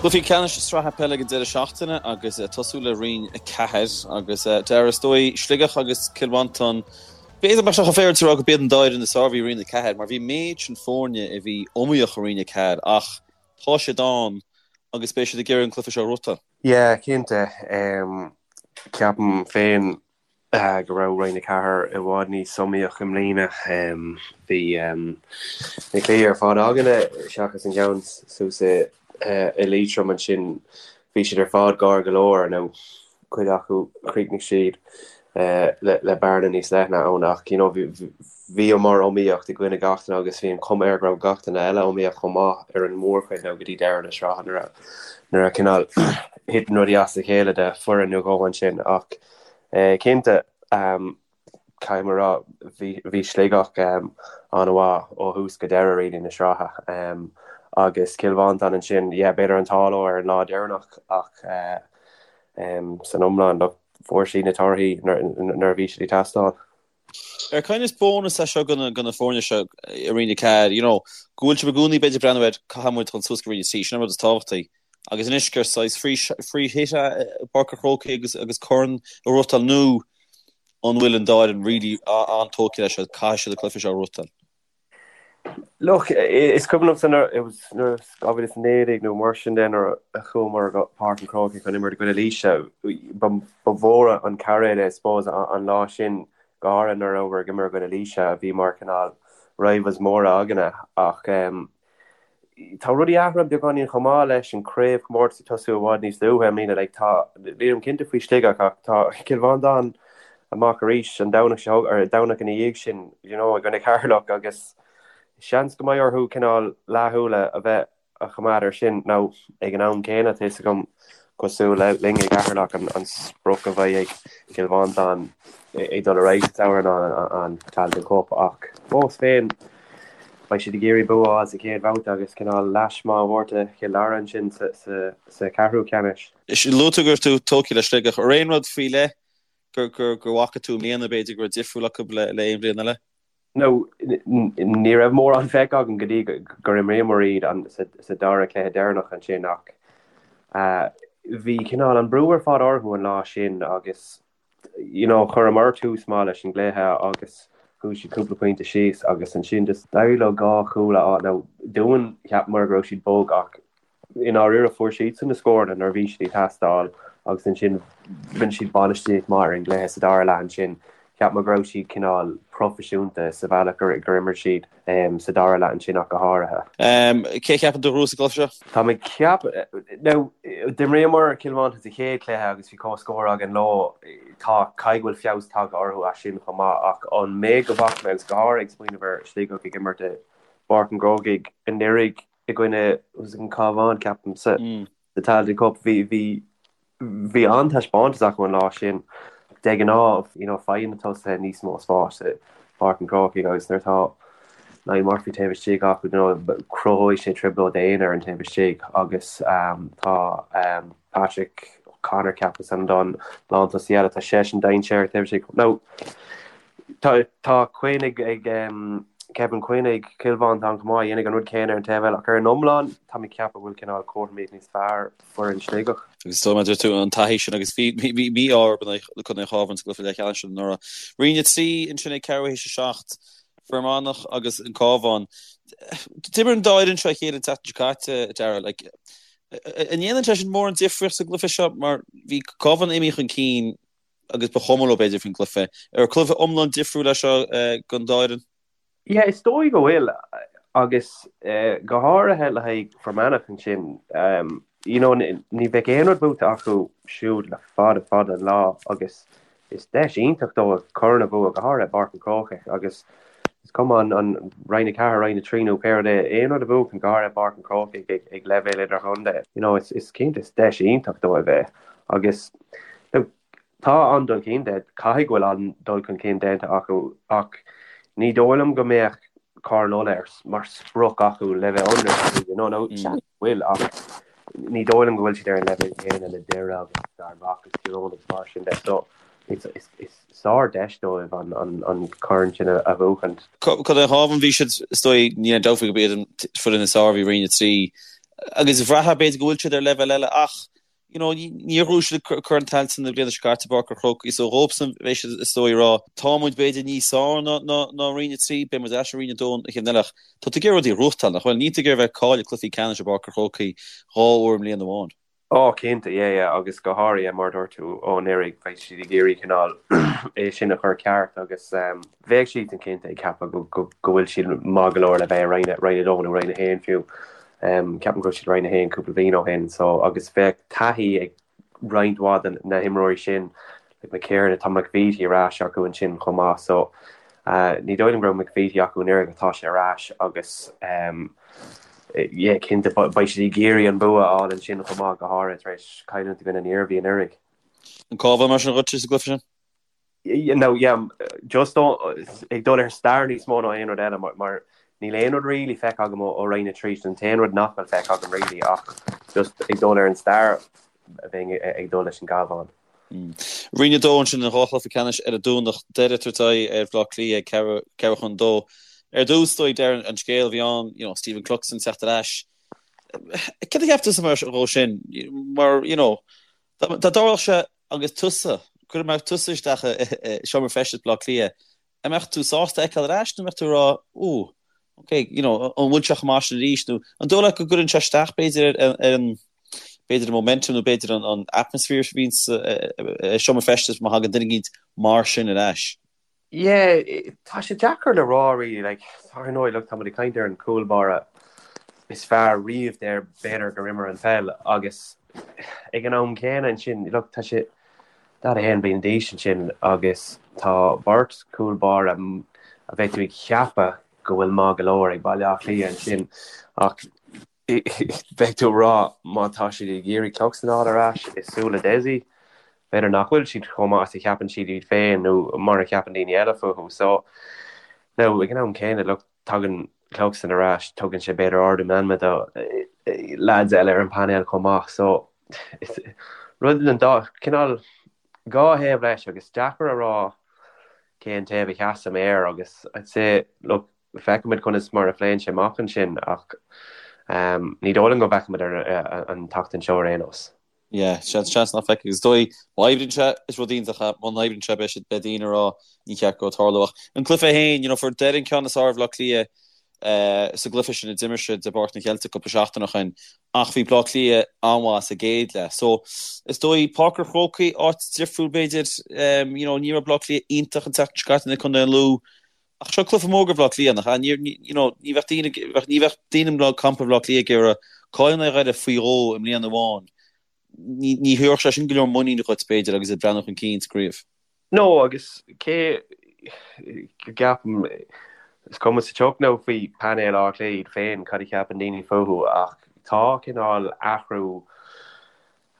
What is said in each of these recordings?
Cluichí ceannais sraithe peile ag an deireadh seachtaine agus ag tosú le Roinn 4 agus Dara is dóigh Sligeach agus Cill Mhantáin. B'fhéidir nach mbeadh sé chomh féaráilte a rá gurb iad an dá fhoireann is fearr a bhí i Roinn 4 mar bhí méid sin foirne a bhí iomaíoch i Roinn 4 ach tá siad ann agus beidh siad ag iarraidh an cluiche seo a ghnóthachtáil. Yeah, cinnte. Ceapaim féin go raibh Roinn 4 i bhfad níos iomaíoch i mbliana. Bhí na cluichí ar fad againne, seachas an ceann suas i Liatroim ansin, bhí siad ar fad gar go leor, nó cuid acu chríochnaigh siad le bearna níos leithne ann ach you know bhíomar iomaíocht i gcoinne gach duine agus bhí an chuma air go raibh gach duine eile iomaíoch chomh maith ar an mórchuid nó go dtí deireadh na sraithe nuair a nuair a cineál thit rudaí as a chéile do foireann nó dhó ansin ach cinnte caithfidh mé a rá bhí Sligeach an-mhaith ó thús go deireadh really na sraithe agus Cill Mhantáin ansin yeah b'fhéidir an t-ádh leo ar an lá deireanach ach san iomlán look fuair siad na torthaí nuair a bhí siad ag teastáil. Ar kind of bónas é seo do na foirne seo i Roinn 4, you know, go bhfuil sibh i gcónaí b'fhéidir ag breathnú ar caithfidh muid dul suas go Roinn 3, sin an rud is tábhachtaí. Agus anois gur saghas free free hit é i bPáirc an Chrócaigh agus agus corn a ghnóthachtáil nó an bhfuil an dá fhoireann really an-tógtha leis seo, caithfidh siad an cluiche seo a ghnóthachtáil. Look, is cuimhin liomsa nuair, it was nuair 2019 nó mar sin de nuair a chuamar go Páirc an Chrócaigh chun imirt i gcoinne Laoise, ba mhór an cairéad é I suppose an lá sin, go háirithe nuair a rabhamar ag imirt i gcoinne Laoise a bhí mar cineál rivals móra againne ach tá rudaí athraithe beagáinín chomh maith leis an craobhchomórtas ag tosú i bhfad níos luaithe i mbliana. Like tá, nílim cinnte faoi Sligeach ach tá Cill Mhantáin amach arís an Domhnach seo, or an Domhnach ina dhiaidh sin, you know, i gcoinne Ceatharlach agus seans go mbeidh orthu cineál leathshúil a bheith a choimeád air sin. Now, ag an am céanna, tá fhios agam, cosúil le linn i gCeatharlach, an sprioc a bheidh ag Cill Mhantáin ag dul ar aghaidh sa tsamhradh ná an Tailteann Cup ach fós féin, beidh siad ag iarraidh bua a fháil sa chéad bhabhta agus cineál leash maith a thabhairt do Chill Dara ansin sa cheathrú ceannais. Luaigh tú go raibh tú tógtha le Sligeach. Ar aon rud faoi leith gur bhfaca tú i mbliana, b'fhéidir, go raibh difriúil acu le aon bhliain eile? Now, ní raibh mórán feicthe agam go dtí gur imríomar iad sa dara cluiche deireanach ansin ach bhí cineál an brú ar fad orthu an lá sin agus you know chuireamar tús maith leis an gcluiche agus chuaigh siad cúpla pointe síos agus ansin just d'éirigh leo dhá chúl a fháil. Now, dúinn cheapamar go raibh siad bog ach I ndáiríre, fuair siadsan na scóranna nuair a bhí siad ag teastáil agus ansin rinne siad bainistíocht maith ar an gcluiche sa dara leath ansin. Cheap mé go raibh siad cineál proifisiúnta sa bhealach gur imir siad sa dara leath ansin ach go háirithe. Cé a cheapann tú a ghnóthós an cluiche seo? Tá mé ag ceapadh, now, d'imríomar Cill Mhantáin sa chéad chluiche agus bhí comhscór againn leo. Tá, caithfidh go bhfuil feabhas tagtha orthu as sin chomh maith ach an méid go bhfaca mé agus go háirithe ag smaoineamh ar Sligeach ag imirt i bPáirc an Chrócaigh anuraidh, i gcoinne an Cabhán, ceapaim, sa Tailteann Cup. Bhí, bhí, bhí an-taispeántas acu an lá sin. De ghnáth, you know, faigheann na tosaithe níos mó spáis i bPáirc an Chrócaigh agus nuair atá Niall Murphy taobh istigh acu, you know, cruthóidh sé trioblóid d'aon fhoireann taobh istigh agus tá Patrick O'Connor, ceapaim, is ainm don lántosaí eile, tá seisean dainséarach taobh istigh. Now, Tá tá Quinn ag ag Kevin Quinn ag Cill Mhantáin chomh maith a dhéanfaidh an rud céanna ar an taobh eile ach ar an iomlán tá mé ag ceapadh go bhfuil cineál cothromaíocht níos fearr foireann Sligeach. Agus is dóigh mar a deir tú an taithí sin agus bhí bhí mí-ádh orthu in aghaidh Contae an Chabháin sa gcluiche leathcheannais sin anuraidh. Roinn 3 ansin ag ceathrú théis 7, Fear Manach agus an Cabhán. D'imir an dá fhoireann seo a chéile an tseachtain seo caite, Darragh. Like, an ndéanann sé sin mórán difríocht sa gcluiche seo mar bhí Cabhán imithe chun cinn agus ba chuma leo b'fhéidir faoin gcluiche. Ar cluiche iomlán difriúil é seo don dá fhoireann? Yeah, is dóigh go bhfuil agus go háirithe le haghaidh Fear Manach ansin, you know, ní bheidh aon rud buaite acu siúd le fada fada an lá agus is deis iontach dóibh corn a bhua, go háirithe i bPáirc an Chrócaigh agus is cuma an Roinn 4, Roinn 3 nó pé rud é, aon rud a bhuachan, go háirithe i bPáirc an Chrócaigh ag leibhéal idirchontae, you know, is cinnte is deis iontach dóibh é agus Tá an-dul chun cinn, caithfidh go bhfuil an-dul chun cinn déanta acu ach ní dóigh liom go mbeadh Corn Uladh mar sprioc acu le bheith ionraic, you know, nó seans go bhfuil ach ní dóigh liom go bhfuil siad ar an leibhéal céanna le Doire agus Fear Manach agus Tír Eoghain agus mar sin de. So is sár-deis dóibh an corn sin a bhuachaint. Contae an Chabháin, bhí siad, is dóigh, níl aon dabht faoi gurb iad an foireann is fearr a bhí i Roinn 3. Agus bhraithfeá b'fhéidir go bhfuil siad ar leibhéal eile ach, you know, níor ghnóthaigh siad Corn Tailteann na bliana seo caite i bPáirc an Chrócaigh so dhóibhsan bheidh siad is dóigh ag rá tá muid b'fhéidir níos fearr ná ná ná Roinn 3, beidh muid ar ais i Roinn 2 an chéad bhliain eile ach tá tú ag iarraidh rudaí a ghnóthachtáil, nach bhfuil? Níl tú ag iarraidh bheith ag cailleadh cluichí ceannais i bPáirc an Chrócaigh 2 uair i mbliain amháin. Ó, cinnte, yeah, yeah, agus go háirithe mar a dúirt tú ó anuraidh, beidh siad ag iarraidh cineál é sin a chur ceart agus bheadh siadsan cinnte ag ceapadh go go go bhfuil siad maith go leor le bheith i Roinn Roinn 2 nó Roinn 1 fiú. Ceapaim go raibh siad Roinn 1 cúpla bliain ó shin so agus bheadh taithí ag roinnt mhaith de na himreoirí sin like McKiernan, tá McVeety ar ais acu ansin chomh maith so ní dóigh liom go raibh McVeety acu anuraidh ach tá sé ar ais agus yeah cinnte beidh siad ag iarraidh an bua a fháil ansin chomh maith go háirithe tar éis cailliúint i gcoinne an Iarmhí anuraidh. An Cabhán mar sin dhuit sa gcluiche sin? No, yeah, just ag dul ar stair níos mó ná aon rud eile mar níl aon rud really feicthe agam ó Roinn 3, sin an t-aon rud nach bhfuil feicthe agam really ach just ag dul ar an stair bheinn ag dul leis an gCabhán. Roinn 2 ansin an dá chluiche ceannais ar an Domhnach, Doire ag tabhairt aghaidh ar Bhaile Átha Cliath ag ceathrú chun 2. Ar dtús, is dóigh, Darren, an scéal a bhí ann, you know, Stephen Cluxton teacht ar ais. Céard a cheap tusa mar dhó sin? Mar, you know, dá dtarlódh sé agus tusa, go mbeadh tusa isteach i seomra feistis Bhaile Átha Cliath, an mbeadh tú sásta é a fheiceáil ar ais nó an mbeadh tú ag rá, ooh, ok, you know, an bhfuil sé chomh maith sin arís nó an dóigh leat go gcuireann sé isteach b'fhéidir ar an, b'fhéidir an momentum nó b'fhéidir an atmosphere a bhíonn sa seomra feistis má thagann duine eicínt mar sin ar ais? Yeah, tá sé deacair le rá really, like, ar ndóigh, look, tá muid ag caint ar an cúl báire is fearr riamh there b'fhéidir gur imir an pheil agus ag an am céanna ansin, look, tá sé 41 bliain d'aois ansin agus tá beirt cúl báire a bheadh tú ag ceapadh go bhfuil maith go leor ag Baile Átha Cliath ansin ach Bheadh tú ag rá má tá siad ag iarraidh Cluxton a fháil ar ais i súile Dessie, b'fhéidir nach bhfuil siad chomh maith is a cheapann siad iad féin nó mar a cheapann daoine eile fúthu. So, now, ag an am céanna, look, tagann Cluxton ar ais, tugann sé b'fhéidir ardú meanma do lads eile ar an bpainéal chomh maith. So, rud den dá, cineál dhá thaobh leis agus deacair a rá cén taobh a sheasaim air agus I'd say, look, Feicfimid conas mar a phléann sé amach ansin ach ní dóigh liom go bhfeicfimid an tseachtain seo ar aon nós. Yeah, seans seans nach bhfeicfidh. Is dóigh, má oibríonn sé, is rud iontach é. Muna n-oibríonn sé, beidh siad, beidh daoine ag rá ní cheart go tarlú. Ach an cluiche féin, you know, fuair Doire an ceann is fearr ar Bhaile Átha Cliath sa gcluiche sin a d'imir siad i bPáirc na gCeilteach cúpla seachtain ó shin ach bhí Baile Átha Cliath an-mhaith sa gcéad leath. So, is dóigh, Páirc an Chrócaigh, áit difriúil b'fhéidir, you know, ní raibh Baile Átha Cliath iontach an tseachtain seo caite in aghaidh Contae an Lú. Ach seo cluiche mór do Bhaile Átha Cliath, nach ea? Ní, you know, ní bheadh daoine, ní bheadh daoine i gcampa Bhaile Átha Cliath ag iarraidh cailleadh in aghaidh Dhoire faoi dhó i mbliain amháin. Ní, ní thabharfadh sé sin go leor muiníne dhuit, b'fhéidir, agus ag breathnú chun cinn sa gcraobh. No, agus cé go gceapaim, is cuma sa tsioc now faoi painéal Átha Cliath iad féin, cad a cheapann daoine fúthu, ach tá cineál athrú,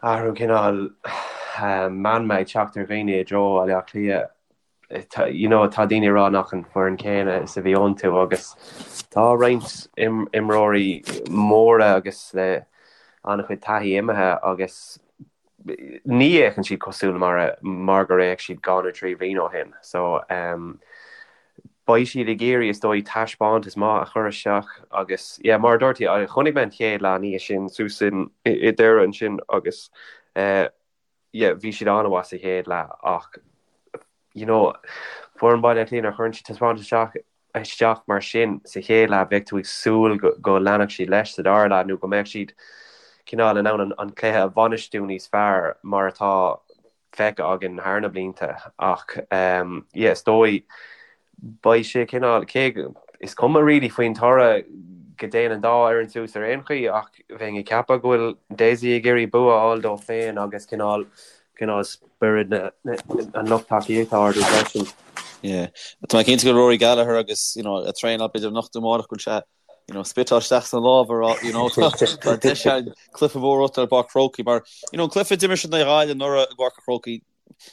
athrú cineál meanma ag teacht ar dhaoine i dtreo Bhaile Átha Cliath. you know, tá daoine ag rá nach an foireann céanna is a bhí iontu agus tá roinnt imreoirí móra agus le an-chuid taithí imithe agus ní fhéachann siad cosúil mar a, mar gur fhéach siad dhá nó trí bhliain ó shin. So um, beidh siad ag iarraidh is dóigh taispeántas maith a chur isteach agus yeah, mar a dúirt tú, chonaic mé an chéad leath an oíche sin suas in i Doire ansin agus uh, yeah, bhí siad an-mhaith sa chéad leath ach you know, foireann Baile Átha Cliath nuair a chuireann siad taispeántas isteach isteach mar sin sa chéad leath bheadh tú ag súil go, go leanfadh siad leis sa dara leath nó go mbeadh siad cineál in ann an, an cluiche a bhainistiú níos fearr mar atá feicthe againn thar na blianta ach um, yeah, is dóigh Beidh sé cineál, cé go, is cuma really faoin toradh go dtéann an dá fhoireann suas ar aon chaoi ach bheinn ag ceapadh go bhfuil Dessie ag iarraidh bua a fháil dó féin agus cineál, cineál spiorad na, na, an lucht tacaíochta a ardú freisin. Yeah. Tá mé cinnte go bhfuil Rory Gallagher agus, you know, ag traenáil b'fhéidir anocht nó amárach go bhfuil sé, you know, spiotáil isteach sna lámha a rá, you know, tá, tá deis againn cluiche mór a bhuachtáil i bPáirc an Chrócaigh mar, you know, an cluiche a d'imir siad in aghaidh Ghaillimh anuraidh i bPáirc an Chrócaigh,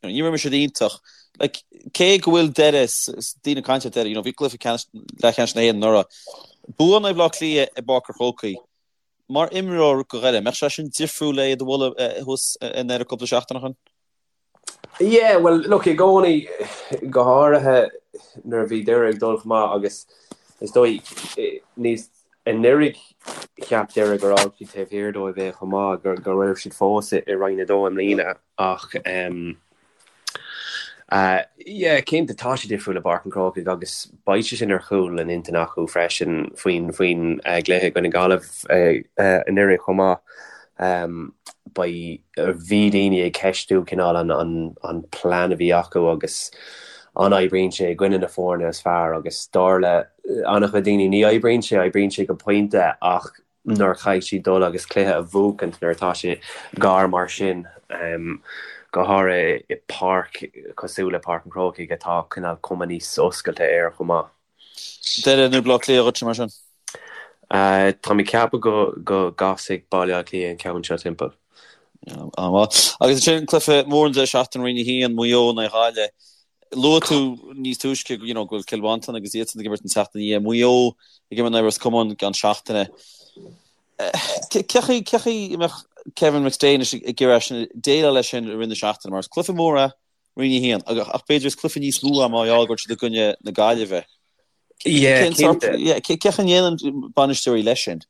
You know, ní raibh siad iontach. Like, cé go bhfuil Doire, daoine ag caint ar Doire, you know, bhí cluiche ceannais, leathcheannais na hÉireann anuraidh. Bua in aghaidh Bhaile Átha Cliath i bPáirc an Chrócaigh. Mar imreoir do Dhoire, mbeadh sé sin difriúil le iad a bhualadh thuas i nDoire cúpla seachtain ó shin? Yeah, well, look, i gcónaí, go háirithe nuair a bhí Doire ag dul chomh maith agus is dóigh níos. Anuraidh cheap Doire gur fhág siad taobh thiar dóibh é chomh maith, go raibh siad fós i Roinn 2 i mbliana ach yeah cinnte tá sé difriúil i bPáirc an Chrócaigh agus beidh sé sin ar chúl a n-intinne acu freisin faoin faoin gcluiche i gcoinne Gaillimh anuraidh chomh maith. Beidh, bhí daoine ag ceistiú cineál an an an plean a bhí acu agus an oibríonn sé i gcoinne na foirne is fearr agus dar le an-chuid daoine ní oibríonn sé, oibríonn sé go pointe ach nuair a chaithfidh siad dul agus cluiche a bhuachaint nuair atá sé gar mar sin, go háirithe i páirc cosúil le Páirc an Chrócaigh atá cineál cuma níos oscailte air chomh maith. Doire nó Baile Átha Cliath dhuitse mar sin? Tá mé ag ceapadh go go gcasfaidh Baile Átha Cliath an ceann seo timpeall. An-mhaith. Agus ansin cluiche mór an deireadh seachtaine Roinn 1, Maigh Eo in aghaidh Ghaillimh. Luaigh tú níos túisce you know, go bhfuil Cill Mhantáin agus iadsan ag imirt an tseachtain ina dhiaidh. Maigh Eo ag imirt in aghaidh Ros Comáin i gceann seachtaine. Cé chaoi cé chaoi a mbeadh Kevin McStay anois ag iarraidh sin déileáil leis sin i rith na seachtaine mar is cluiche mór é Roinn 1 ach b'fhéidir is cluiche níos mó é mar gheall go bhfuil siad i gcoinne na Gaillimhe. Yeah, cinnte. Cé chaoi a ndéanann bainisteoirí leis sin?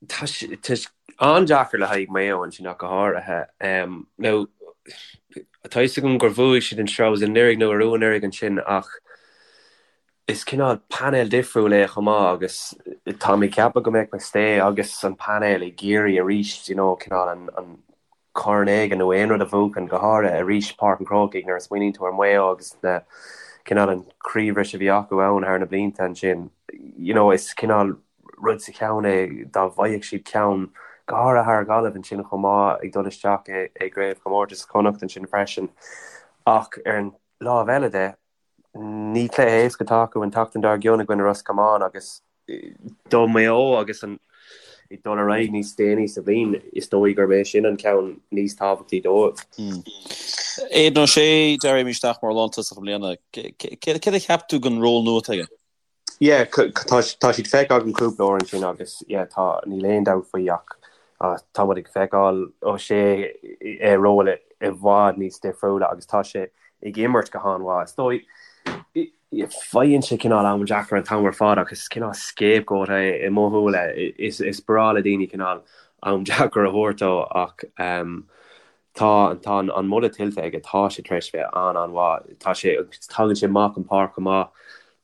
Tá sé an-deacair le haghaidh Maigh Eo ansin ach go háirithe. Now, tá fhios agam gur bhuaigh siad an sraith anuraidh nó arú anuraidh ansin ach is cineál painéal difriúil é chomh maith agus tá mé ag ceapadh go mbeadh McStay agus an painéal ag iarraidh arís, you know, cineál an corn éigin nó aon rud a bhuachan, go háirithe arís Páirc an Chrócaigh nuair a smaoiníonn tú ar Mhaigh Eo agus na cineál an chroíbhris a bhí acu ann thar na blianta ansin, you know, is cineál rud sa cheann é dá bhfaigheadh siad ceann, go háirithe thar Ghaillimh ansin chomh maith ag dul isteach i i gcraobhchomórtas Chonnacht ansin freisin. Ach ar an lámh eile de, Ní cluiche éasca atá acu an tseachtain dár gcionn i gcoinne Ros Comáin agus do Mhaigh Eo agus an ag dul ar aghaidh níos déanaí sa bhliain, is dóigh gurb é sin an ceann níos tábhachtaí dóibh. Aidan O'Shea, Darragh, imithe isteach mar lántosach i mbliana. Céard a cheap tú den ról nua atá aige? Yeah, tá tá siad feicthe agam cúpla uair ansin agus yeah tá níl aon dabht faoi ach tá muid ag feiceáil O'Shea i ról i bhfad níos difriúla agus tá sé ag imirt go han-mhaith. Is dóigh faigheann sé cineál am deacair an t-am ar fad ach is cineál scapegoat é i mo shúile. Is is breá le daoine cineál am deacair a thabhairt dó ach Tá, tá an moladh tuillte aige, tá sé tar éis bheith an-an-mhaith. Tá sé, tagann sé amach an páirc chomh maith,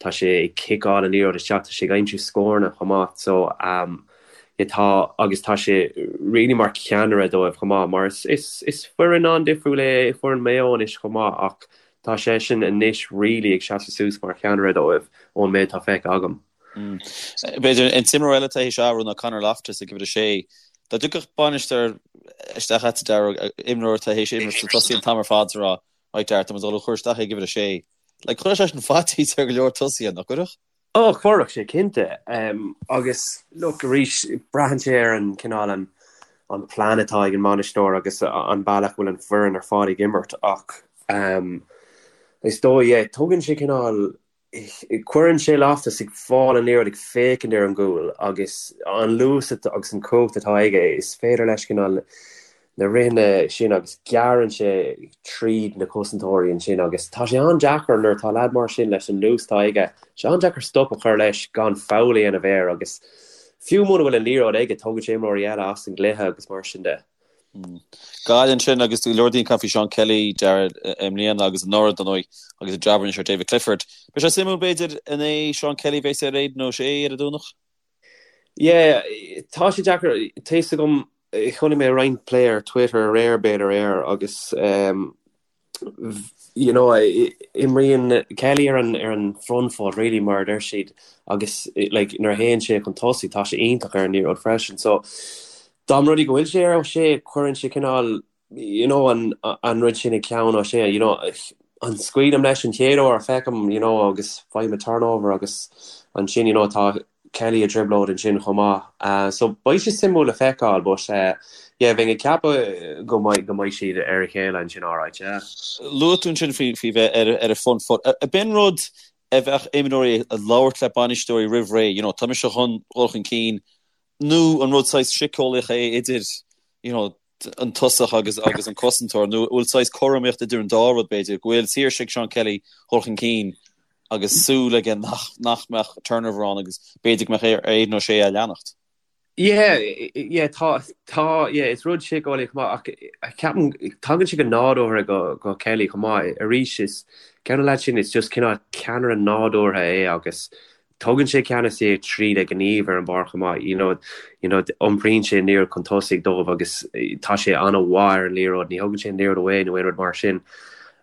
tá sé ag ciceáil an liathróid isteach, tá sé ag aimsiú scóranna chomh maith. So, yeah, tá, agus tá sé really mar cheannaire dóibh chomh maith, mar is, is, is foireann an-difriúil é foireann Mhaigh Eo anois chomh maith ach tá seisean anois really ag seasamh suas mar cheannaire dóibh ón méid atá feicthe agam. B'fhéidir an t-imreoir eile atá théis athrú ná Conor Loftus ag uimhir 6. Dá dtiocfadh bainisteoir isteach agat Darragh, imreoir atá théis imirt sna tosaithe an t-am ar fad is a rá, right Darragh, tá muid ag dul a chur isteach ag uimhir 6. Like, chuirfeadh sé sin faitíos ar go leor tosaithe, nach gcuirfeadh? Ó, chuirfeadh sé, cinnte. Agus, look, arís, braitheann sé ar an cineál an an plean atá ag an mbainisteoir agus an bealach a bhfuil an foireann ar fad ag imirt ach is dóigh, yeah, tugann sé cineál Cuireann sé Loftus ag fáil an liathróid ag féachaint ar an gcúl agus an luas agus an chumhacht atá aige, is féidir leis cineál na ritheanna sin agus gearrann sé tríd na cosantóirí ansin agus tá sé an-deacair nuair atá leaid mar sin leis an luas atá aige, tá sé an-deacair stop a chur leis gan foul a dhéanamh air agus fiú muna bhfuil an liathróid aige tógann sé imreoirí eile as an gcluiche agus mar sin de. Gaillimh ansin agus go leor daoine ag caint faoi Seán Kelly, Darragh, i mbliana agus anuraidh, dar ndóigh, agus an jab a rinne sé ar David Clifford. Beidh sé suimiúil, b'fhéidir, an é Seán Kelly a bheas ar Aidan O'Shea ar an Domhnach? Yeah, tá sé deacair. Tá fhios agam, chonaic mé roinnt plé ar Twitter aréir, b'fhéidir, air agus you know, imríonn Kelly ar an ar an front foot really mar a deir siad agus like nuair a théann sé chun tosaigh tá sé iontach ar an liathróid freisin. So dá mba rud é go bhfuil sé ar O'Shea cuireann sé cineál you know an an rud sin i gceann O'Shea you know an scaoilim leis an chéad uair a feicim you know agus faighim turnover agus ansin you know tá Kelly i dtrioblóid ansin chomh maith. So beidh sé suimiúil le feiceáil but yeah bheinn ag ceapadh go mbeidh go mbeidh siad ar a chéile ansin alright yeah. Luaigh tú ansin faoi faoi bheith ar ar an front foot. Ab in rud a bheadh imreoirí ag labhairt le bainisteoirí roimh ré, you know tá mise chun dhul chun cinn nó an rud saghas síceolaíoch é idir you know an tosach agus agus an cosantóir nó bhfuil saghas cothromaíocht idir an dá rud b'fhéidir, go bhfuil saoirse ag Seán Kelly dhul chun cinn agus súil aige nach nach mbeadh turnover ann agus b'fhéidir go mbeadh ar Aidan O'Shea é a leanacht. Yeah, yeah, tá, tá, yeah, is rud síceolaíoch chomh maith ach ceapaim, tagann sé go nádúrtha go, go Kelly chomh maith. Arís, is ceann de na lads sin, is just cineál ceannaire nádúrtha é agus tugann sé ceannasaíocht tríd a ghníomh ar an bpáirc chomh maith. You know, you know, iompraíonn sé an liathróid chun tosaigh dóibh agus tá sé an-mhaith ar an liathróid, ní thugann sé an liathróid away nó aon rud mar sin.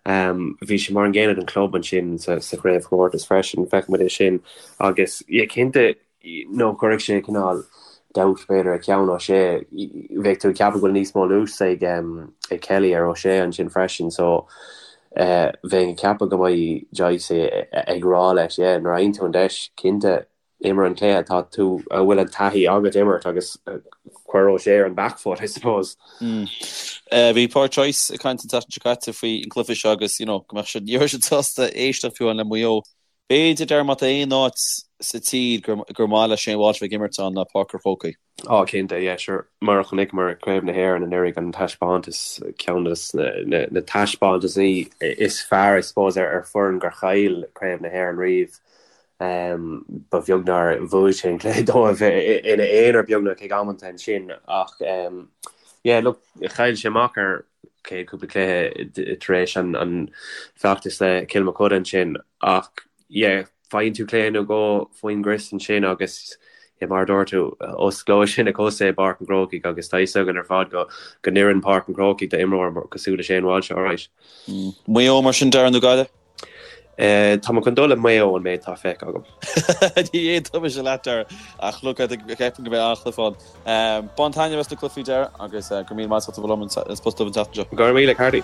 Um, bhí sé mar an gcéanna don club ansin sa, sa chraobhchomórtas freisin, feicfidh muid é sin agus, yeah, cinnte, nó cuirfidh sé cineál dabht b'fhéidir ar cheann O'Shea. Bheadh tú ag ceapadh go bhfuil níos mó luas ag ag Kelly ar O'Shea ansin freisin so bheinn ag ceapadh go mbeidh Joyce ag rá leis yeah nuair a fhaigheann tú an deis cinnte imir an cluiche atá tú a bhfuil an taithí agat imirt agus cuir O'Shea ar an back foot I suppose. Bhí Pádraic Joyce ag caint an tseachtain seo caite faoi an cluiche seo agus you know go mbeadh siad ní raibh siad sásta éisteacht fiú amháin le Maigh Eo B'fhéidir, Darragh, má tá aon áit sa tír gur maith le Shane Walsh bheith ag imirt ann ná Páirc an Chrócaigh. Á, cinnte, yeah, sure. Mar a chonaiceamar ag Craobh na hÉireann anuraidh, an taispeántas, ceann de na taispeántasaí is fearr, I suppose, ar foireann gur chaill Craobh na hÉireann riamh. Ba bheag nár bhuaigh sé an cluiche dóibh ina aonar beagnach ag amanta ansin ach, yeah, look, chaill sé amach ar chéad cúpla cluiche tar éis an feachtas le Cill Mochuda ansin ach yeah faigheann tú cluiche nó dhó faoin gcrios ansin agus yeah mar a dúirt tú osclóidh sé na cosa i bPáirc an Chrócaigh agus tá fhios againn ar fad go go n-oireann Páirc an Chrócaigh d'imreoir cosúil le Shane Walsh alright. Maigh Eo mar sin Darragh nó Gaillimh? Tá mé chun dul le Maigh Eo an méid atá feicthe agam. Ní aontóidh mise leat Darragh ach look ceapaim go mbeidh an-chluiche ann. Bain taitneamh as na cluichí Darragh agus go raibh míle maith agat as ucht a bheith liom an Spota Dubh an tseachtain seo. Go raibh míle, Carty.